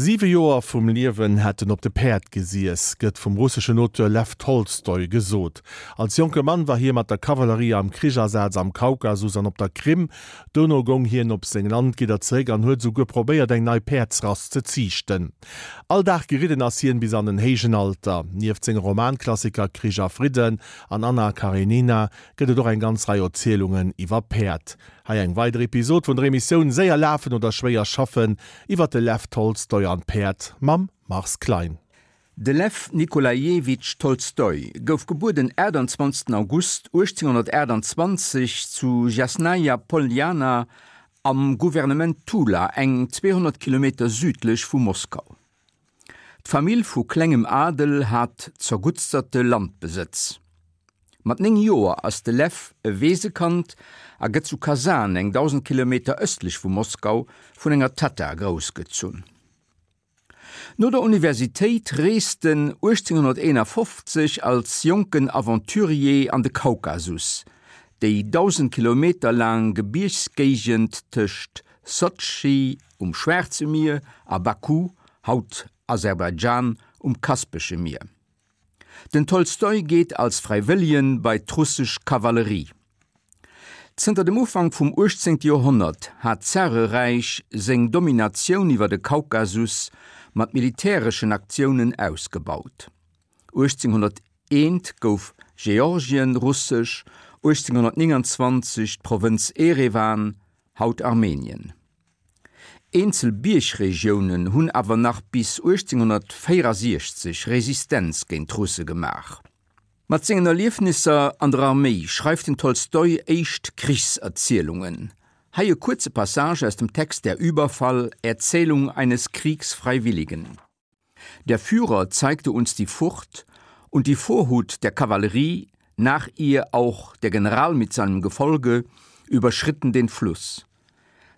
Siwe Joer vum Liewen hätt en op de Päerd gesiess, gëtt vum russeschen Auteur Lew Tolstoi gesot. Als jonke Mann war hie mat der Kavallerie am Krichasaz am Kaukasus an op der Krim. Dono goung hien op seng Landgidder zeréck an huet esouguer probéiert eng nei Päerdsrass ze ziichten. All Dag geridden ass hien bis an en héijen Alter. Nieft senge Romanklassiker Krich a Fridden an Anna Karenina gëtt et och eng ganz Rei Erzielungen iwwer Päerd. Hei eng weider Episod vun der Emissioun Séier lafen oder schwéier schaffen iwwer de Lew Tolstoi an d'Päerd mam Mars Klein. De Lew Nikolajewitsch Tolstoi gouf gebuer den 28 August 1828 zu Jasnaja Poljana am Gouvernement Tula, eng 200 Kilometer südlech vu Moskau. D'Famill vu klengem Adel hat zerguttsterte Landbesëtz. Mat 9 Joer ass de Lew e Weesekand a gëtt zu Kasan, eng 1.000 Kilometer ëstlech vu Moskau, vun enger Tatta groussgezunn. No der Universitéit reest en 1851 als jonken Aventurier an de Kaukasus, déi 1.000 Kilometer laang Gebiergsgéigend tëscht Sotschi um Schwaarze Mier a Baku, haut Aserbaidschan, um Kaspesche Mier. Den Tolstoi geet als Fräiwëllegen bei d'russesch Kavallerie. Zënter dem Ufank vum 18. Joerhonnert hat d'Zareräich seng Dominatioun iwwer de Kaukasus mat militäreschen Aktiounen ausgebaut. 1801 gouf Georgien russesch, 1829 d'Provënz Erewan, haut Armenien. Eenzel Biergregiounen hunn awer nach bis 1864 Resistenz géint d'Russe gemaach. Mat sengen Erliefnisser an der Arméi schreift den Tolstoi éischt Krichserzielungen. Hei e kuerze Passage aus dem Text Der Überfall, Erzählung eines Kriegsfreiwilligen. Der Führer zeigte uns die Furt und die Vorhut der Kavallerie, nach ihr auch der General mit seinem Gefolge, überschritten den Fluss.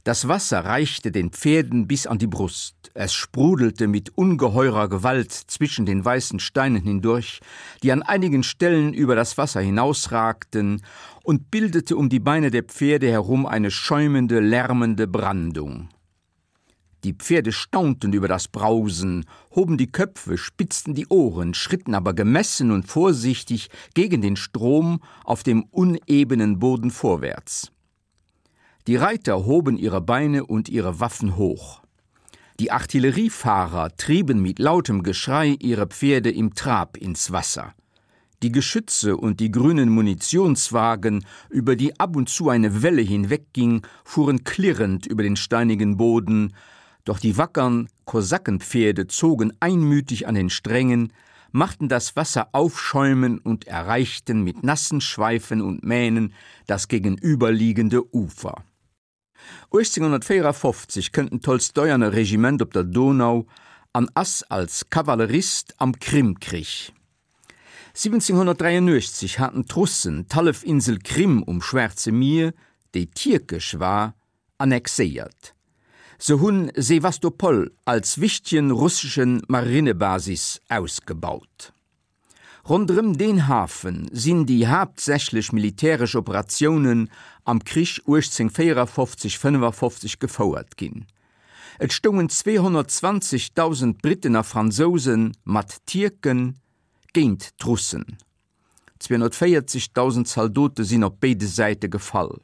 Das Wasser reichte den Pferden bis an die Brust. Es sprudelte mit ungeheurer Gewalt zwischen den weißen Steinen hindurch, die an einigen Stellen über das Wasser hinausragten und bildete um die Beine der Pferde herum eine schäumende, lärmende Brandung. Die Pferde staunten über das Brausen, hoben die Köpfe, spitzten die Ohren, schritten aber gemessen und vorsichtig gegen den Strom auf dem unebenen Boden vorwärts. Die Reiter hoben ihre Beine und ihre Waffen hoch. Die Artilleriefahrer trieben mit lautem Geschrei ihre Pferde im Trab ins Wasser. Die Geschütze und die grünen Munitionswagen, über die ab und zu eine Welle hinwegging, fuhren klirrend über den steinigen Boden, doch die wackern Kosakenpferde zogen einmütig an den Strängen, machten das Wasser aufschäumen und erreichten mit nassen Schweifen und Mähnen das gegenüberliegende Ufer. 1854 kënnt den Tolstoi an e Regiment op der Donau an ass als Kavallerist am Krimkrich. 1783 haten d'Russen d'Hallefinsel Krim um Schwaarze Mier, déi tierkesch war, annexéiert. Se hunn Sewastopol als wichtegen russeschen Marinebasis ausgebaut. Ronderëm deen Hafe sinn déi haaptsächlech militäresch Operatiounen am Krich 1854, 55 gefouert ginn. Et stoungen 220.000 Britten a Fransouse mat Tierke géint d'Russen. 240.000 Zaldote sinn op béide Säite gefall.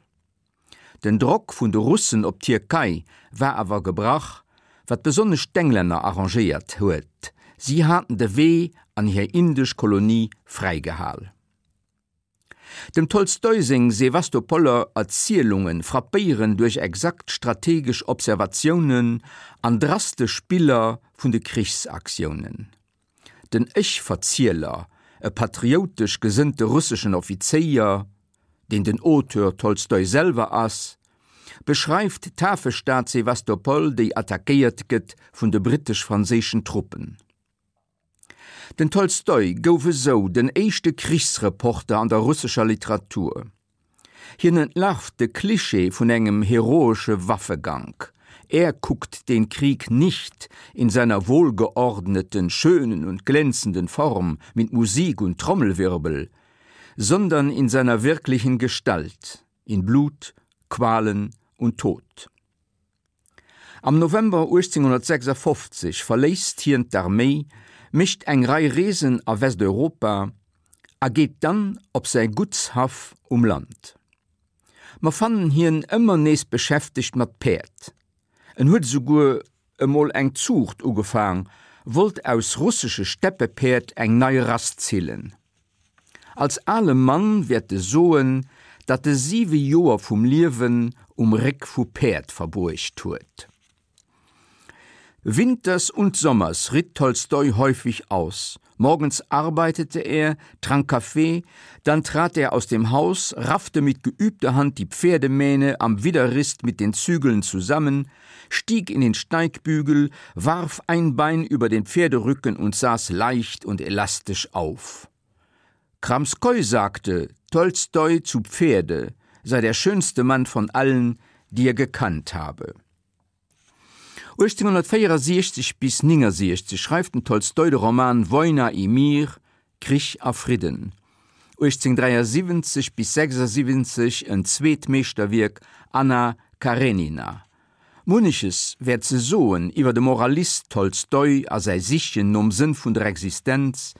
Den Drock vun de Russen op d'Tierkei war awer gebrach, wat besonnesch d'Englänner arrangéiert huet, si haten de Wee an hir indesch Kolonie fräigehal. Dem Tolstoi seng Sewastopoler Erzielunge frappéieren duerch exakt strategesch Observatiounen an drastesch Biller vun de Krichsaktiounen. Den Ech-Verzieler, e patrioutesch gesënnte russeschen Offizéier, deen den Auteur Tolstoi selwer ass, beschreift d'Hafestad Sewastopol, déi attackéiert gëtt vun de brittesch-franséischen Truppen. Den Tolstoi gouf esou den éischte Krichsreporter an der russescher Literatur. Hien entlarvt de Klischee vun engem heroesche Waffegank. Er guckt den Krieg nicht in seiner wohlgeordneten, schönen und glänzenden Form mit Musik und Trommelwirbel, sondern in seiner wirklichen Gestalt, in Blut, Qualen und Tod. Am November 1856 verléisst hien d'Arméi, mécht eng Rei Reesen a Westeuropa a geet dann op säi Guttshaff um Land. Mer fannen hien ëmmer nees beschäftegt mat Päerd. En huet esouguer emol eng Zuucht ugefaang, wollt aus russesche Steppepäerd eng nei Rass zillen. Als ale Mann wäert e soen, datt e siwe Joer vum Liewen um Réck vu Päerd verbruecht huet. Winters und sommers ritt Tolstoi häufig aus. Morgens arbeitete er, trank Kaffee, dann trat er aus dem Haus, raffte mit geübter Hand die Pferdemähne am Widerrist mit den Zügeln zusammen, stieg in den Steigbügel, warf ein Bein über den Pferderücken und saß leicht und elastisch auf. Kramskoi sagte, Tolstoi zu Pferde sei der schönste Mann von allen, die er gekannt habe. 1864 bis 69 schreift den Tolstoi de Roman Wojna i Mir, Krich a Fridden, 1873 bis 76 en zweet Meeschterwierk Anna Karenina. Munneches wär ze soen iwwer de Moralist Tolstoi a säi Sichen nom Sënn vun der Existenz,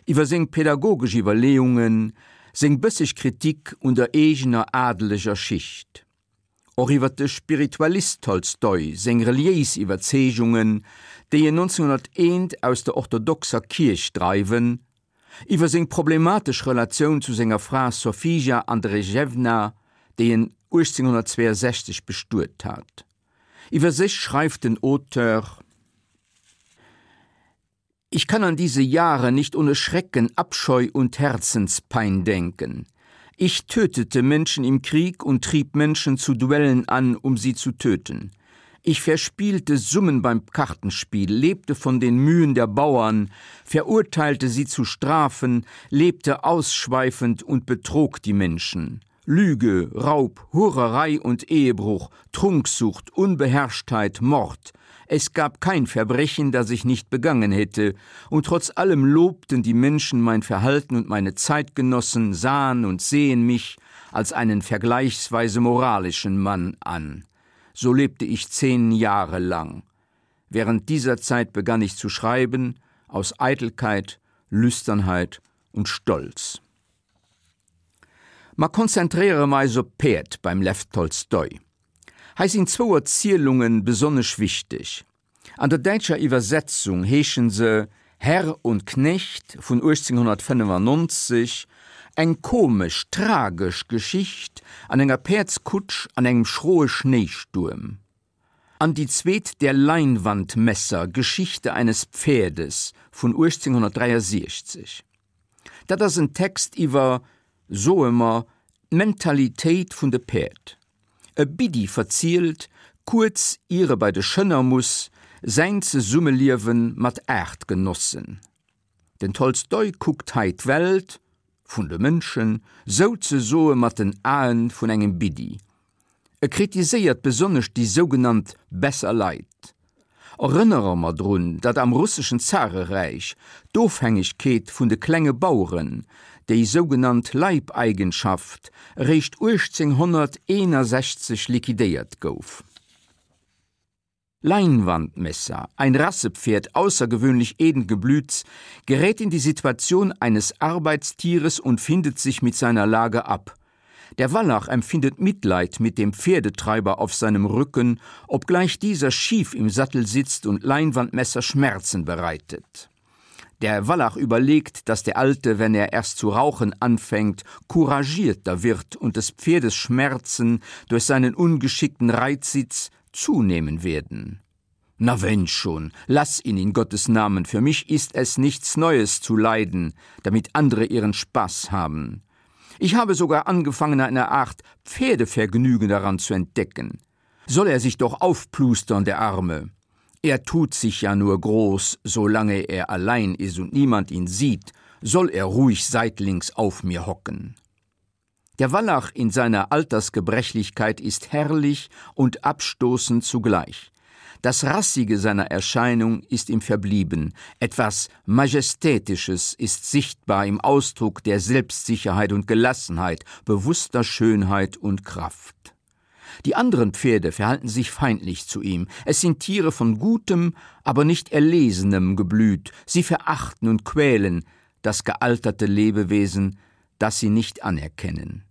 iwwer seng pädagogesch Iwwerleeungen, seng bësseg Kritik un der eegener adeleger Schicht. Och iwwer de Spiritualist Tolstoi seng reliéis Iwwerzeegungen, déi en 1901 aus der orthodoxer Kierch dreiwen, iwwer seng problematesch Relatioun zu senger Fra Sofija Andrejewna, déi en 1862 bestuet hat. Iwwer sech schreift den Auteur. Ich kann an diese Jahre nicht ohne Schrecken, Abscheu und Herzenspein denken. Ich tötete Menschen im Krieg und trieb Menschen zu Duellen an, um sie zu töten. Ich verspielte Summen beim Kartenspiel, lebte von den Mühen der Bauern, verurteilte sie zu Strafen, lebte ausschweifend und betrog die Menschen. Lüge, Raub, Hurerei und Ehebruch, Trunksucht, Unbeherrschtheit, Mord. Es gab kein Verbrechen, das ich nicht begangen hätte, und trotz allem lobten die Menschen mein Verhalten und meine Zeitgenossen sahen und sehen mich als einen vergleichsweise moralischen Mann an. So lebte ich zehn Jahre lang. Während dieser Zeit begann ich zu schreiben, aus Eitelkeit, Lüsternheit und Stolz. Ma konzentréiere mer eis op d'Päerd beim Lew Tolstoi. Hei sinn zwou Erzielunge besonnesch wichteg. An der däitscher Iwwersetzung heeschen se Herr und Knecht vun 1895, eng komesch, tragesch Geschicht an enger Päerdskutsch an engem schroe Schnéistuerm. An déi zweet Der Leinwandmesser, Geschichte eines Pferdes vun 1863. Dat ass en Text iwwer, soe mer, d'Mentalitéit vun de Päerd. E Biddi verzielt, kuerz ier e bei de Schënner muss, säin Zesummeliewe mat Aartgenossen. Den Tolstoi kuckt hei d'Welt, vun de Mënschen, souzesoe mat den Aen vun engem Biddi. E kritiséiert besonnesch déi sougenannt besser Leit. Erënnere mer drun, datt am russeschen Zareräich d'Ofhängegkeet vun de klenge Baueren, déi sougenannt Leibeigenschaft, eréischt 1861 liquidéiert gouf. Leinwandmesser, ein Rassepferd außergewöhnlich edlen Geblüts, gerät in die Situation eines Arbeitstieres und findet sich mit seiner Lage ab. Der Wallach empfindet Mitleid mit dem Pferdetreiber auf seinem Rücken, obgleich dieser schief im Sattel sitzt und Leinwandmesser Schmerzen bereitet. Der Wallach überlegt, dass der Alte, wenn er erst zu rauchen anfängt, couragierter wird und des Pferdes Schmerzen durch seinen ungeschickten Reitsitz zunehmen werden. Na wenn schon, lass ihn in Gottes Namen, für mich ist es nichts Neues zu leiden, damit andere ihren Spaß haben. Ich habe sogar angefangen, eine Art Pferdevergnügen daran zu entdecken. Soll er sich doch aufplustern, der Arme. Er tut sich ja nur groß, solange er allein ist und niemand ihn sieht, soll er ruhig seitlings auf mir hocken. Der Wallach in seiner Altersgebrechlichkeit ist herrlich und abstoßend zugleich. Das Rassige seiner Erscheinung ist ihm verblieben, etwas Majestätisches ist sichtbar im Ausdruck der Selbstsicherheit und Gelassenheit, bewusster Schönheit und Kraft. Die anderen Pferde verhalten sich feindlich zu ihm. Es sind Tiere von gutem, aber nicht erlesenem Geblüt. Sie verachten und quälen das gealterte Lebewesen, das sie nicht anerkennen.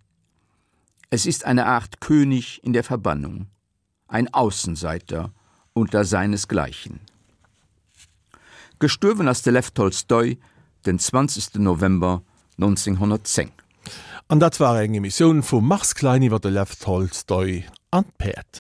Es ist eine Art König in der Verbannung, ein Außenseiter unter seinesgleichen. Gestuerwen ass de Lew Tolstoi den 20 November 1910. An dat war eng Emissioun vum Mars Klein iwwer de Lew Tolstoi an d'Päerd.